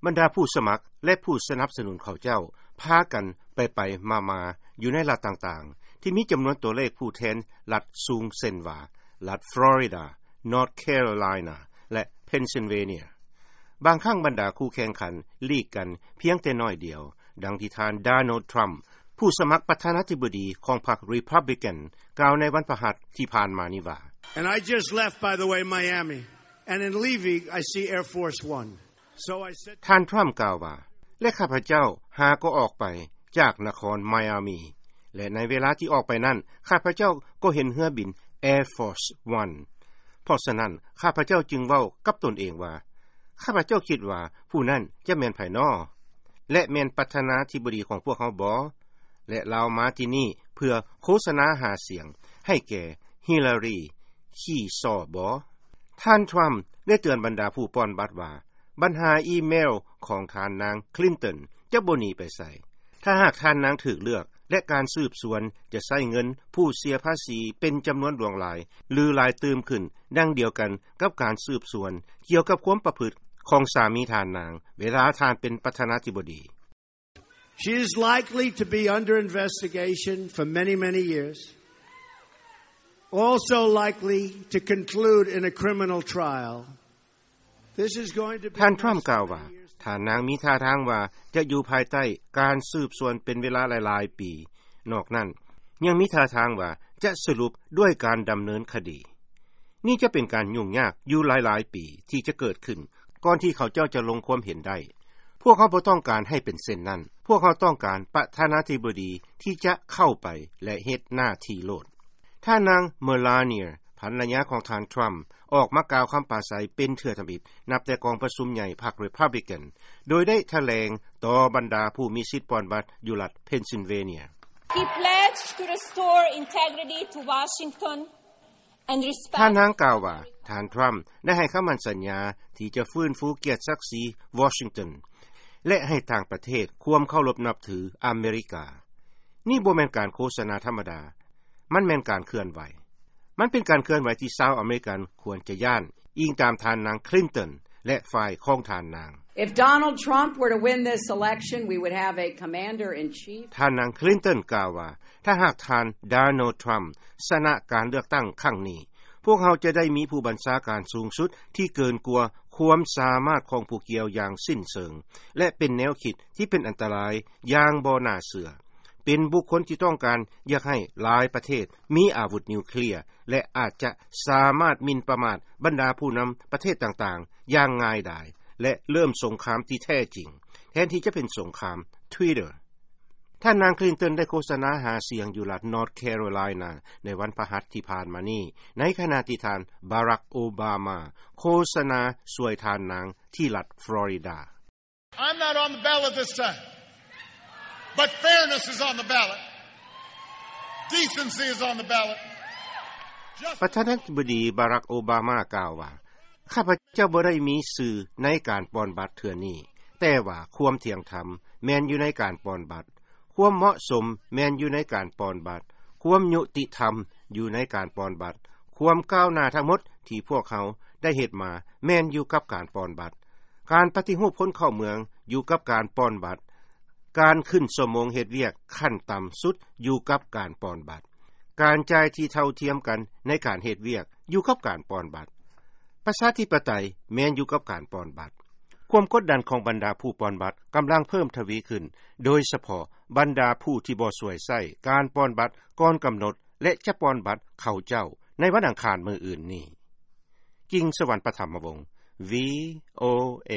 ບັນດາຜູ້ສະໝັກ ແລະ ຜູ້ສະໜັບສະໜູນເຂົາເຈົ້າ ພາກັນໄປໆມາໆຢູ່ໃນລັດຕ່າງໆ ທີ່ມີຈຳນວນຕົວເລກຜູ້ແທນລັດສູງ ເຊັ່ນວ່າ ລັດຟລໍຣິດາ, ນອດແຄໂຣໄລນາ ແລະ ເພນຊິນເວເນຍ. ບາງຄັ້ງບັນດາຄູ່ແຂ່ງຂັນຫຼີກກັນພຽງແຕ່ໜ້ອຍດຽວ, ດັ່ງທີ່ທ່ານ ໂດນັລ ທຣຳ ຜູ້ສະໝັກປະທານາທິບໍດີຂອງພັກຣີພັບບລິກັນ ກ່າວໃນວັນພະຫັດທີ່ຜ່ານມານີ້ວ່າ And I just left, by the way, Miami. And in leaving, I see Air Force One. So I said ທ່ານທຣຳກ່າວວ່າ ແລະ ຂ້າພະເຈົ້າຫາກໍອອກໄປຈາກນະຄອນໄມອາມີ ແລະ ໃນເວລາທີ່ອອກໄປນັ້ນ ຂ້າພະເຈົ້າກໍເຫັນເຮືອບິນ Air Force One. ເພາະສະນັ້ນ ຂ້າພະເຈົ້າຈຶ່ງເວົ້າກັບຕົນເອງວ່າ ຂ້າພະເຈົ້າຄິດວ່າຜູ້ນັ້ນຈະແມ່ນໃຜນໍ ແລະ ແມ່ນປະທານາທິບໍດີຂອງພວກເຮົາບໍ? ແລະ ລາວມາທີ່ນີ້ເພື່ອໂຄສະນາຫາສຽງໃຫ້ແກ່ຮິລາຣີຄີຊໍບໍ? ທ່ານທຣຳໄດ້ເຕືອນບັນດາຜູ້ປ່ອນບັດວ່າ ບັນຫາອີເມວຂອງທ່ານນາງຄລິນຕັນຈະບໍ່ໜີໄປໃສ ຖ້າຫາກທ່ານນາງຖືກເລືອກ ແລະ ການສືບສວນຈະໃຊ້ເງິນຜູ້ເສຍພາສີເປັນຈຳນວນຫຼວງຫຼາຍ ຫຼື ຫຼາຍຕື່ມຂຶ້ນ ດັ່ງດຽວກັນກັບການສືບສວນກ່ຽວກັບຄວາມປະພຶດຂອງສາມີທ່ານນາງ ເວລາທ່ານເປັນປະທານາທິບໍດີ. She is likely to be under investigation for many, many years. Also likely to conclude in a criminal trial. This is going to be ທ່ານທຣຳກ່າວວ່າ ທ່ານນາງມີທ່າທາງວ່າຈະຢູ່ພາຍໃຕ້ການສືບສວນເປັນເວລາຫຼາຍໆປີ. ນອກນັ້ນ ຍັງມີທ່າທາງວ່າຈະສະຫຼຸບດ້ວຍການດຳເນີນຄະດີ. ນີ້ຈະເປັນການຫຍຸ້ງຍາກຢູ່ຫຼາຍໆປີທີ່ຈະເກີດຂຶ້ນ ກ່ອນທີ່ເຂົາເຈົ້າຈະລົງຄວາມເຫັນໄດ້. ພວກເຮົາບໍ່ຕ້ອງການໃຫ້ເປັນເຊັ່ນນັ້ນ. ພວກເຮົາຕ້ອງການປະທານາທິບໍດີທີ່ຈະເຂົ້າໄປ ແລະ ເຮັດໜ້າທີ່ໂລດ. ທ່ານນາງ ເມລາເນຍ ພັນລະຍາຂອງທ່ານທຣຳ ອອກມາກ່າວຄຳປາໄສເປັນເທື່ອທຳອິດ ນັບແຕ່ກອງປະຊຸມໃຫຍ່ພັກຣີພັບບລິກັນ ໂດຍໄດ້ຖະແຫຼງຕໍ່ບັນດາຜູ້ມີສິດປ່ອນບັດຢູ່ລັດເພນຊິນເວເນຍ. He pledged to restore integrity to Washington and respect ທ່ານນາງກ່າວວ່າ ທ່ານທຣຳໄດ້ໃຫ້ຄຳໝັ້ນສັນຍາທີ່ຈະຟື້ນຟູກຽດສັກສີວໍຊິງຕັນ ແລະ ໃຫ້ຕ່າງປະເທດຄວາມເຄົາລົບນັບຖືອາເມລິກາ. ນີ້ບໍ່ແມ່ນການໂຄສະນາທຳມະດາ. ມັນແມ່ນການເຄື່ອນໄຫວ. ມັນເປັນການເຄື່ອນໄຫວທີ່ຊາວອາເມລິກັນຄວນຈະຢ້ານ, ອີງຕາມທ່ານນາງຄລິນຕັນ ແລະ ຝ່າຍຂອງທ່ານນາງ. If Donald Trump were to win this election, we would have a commander in chief. ທ່ານນາງຄລິນຕັນກ່າວວ່າ ຖ້າຫາກທ່ານ ໂດນັລ ທຣຳ ຊະນະການເລືອກຕັ້ງຄັ້ງນີ້, ພວກເຮົາຈະໄດ້ມີຜູ້ບັນຊາການສູງສຸດທີ່ເກີນກວ່າຄວາມສາມາດຂອງຜູ້ກ່ຽວຢ່າງສິ້ນເຊີງ ແລະ ເປັນແນວຄິດທີ່ເປັນອັນຕະລາຍຢ່າງບໍ່ໜ້າເຊື່ອ. ເປັນບຸກຄົນທີ່ຕ້ອງການຢາກໃຫ້ຫຼາຍປະເທດມີອາວຸດນິວເຄລຍ ແລະ ອາດຈະສາມາດໝິ່ນປະໝາດບັນດາຜູ້ນຳປະເທດຕ່າງໆຢ່າງງ່າຍດາຍ ແລະ ເລີ່ມສົງຄາມທີ່ແທ້ຈິງ ແທນທີ່ຈະເປັນສົງຄາມ Twitter. ທ່ານນາງຄລິນຕັນໄດ້ໂຄສະນາຫາສຽງຢູ່ລັດ North Carolina ໃນວັນພະຫັດທີ່ຜ່ານມານີ້ ໃນຂະນະທີ່ທ່ານ ບາຣັກ ໂອບາມາ ໂຄສະນາຊ່ວຍທ່ານນາງທີ່ລັດຟລໍຣິດາ. I'm not on the ballot this time, but fairness is on the ballot. Decency is on the ballot. ປະທານາທິບໍດີ ບາຣັກ ໂອບາມາ ກ່າວວ່າ ຂ້າພະເຈົ້າບໍ່ໄດ້ມີຊື່ໃນການປ່ອນບັດເທື່ອນີ້, ແຕ່ວ່າຄວາມທ່ຽງທຳແມ່ນຢູ່ໃນການປ່ອນບັດ, ຄວາມເໝາະສົມແມ່ນຢູ່ໃນການປ່ອນບັດ, ຄວາມຍຸຕິທຳຢູ່ໃນການປ່ອນບັດ, ຄວາມກ້າວໜ້າທັງໝົດທີ່ພວກເຮົາໄດ້ເຮັດມາແມ່ນຢູ່ກັບການປ່ອນບັດ. ການປະຕິຮູບຄົນເຂົ້າເມືອງຢູ່ກັບການປ່ອນບັດ. ການຂຶ້ນຊົ່ວໂມງເຮັດວຽກຂັ້ນຕ່ຳສຸດຢູ່ກັບການປ່ອນບັດ. ການຈ່າຍທີ່ເທົ່າທຽມກັນໃນການເຮັດວຽກຢູ່ກັບການປ່ອນບັດ. ປະຊາທິປະໄຕແມ່ນຢູ່ກັບການປ່ອນບັດ. ຄວາມກົດດັນຂອງບັນດາຜູ້ປ່ອນບັດກຳລັງເພີ່ມທະວີຂຶ້ນ, ໂດຍສະເພາະບັນດາຜູ້ທີ່ບໍ່ສວຍໃຊ້ການປ່ອນບັດກ່ອນກຳນົດ ແລະ ຈະປ່ອນບັດເຂົາເຈົ້າໃນວັນອັງຄານມື້ອື່ນນີ້. ກິງ ສະຫວັນ ປະຖຳມະວົງ ວີ ໂອ ເອ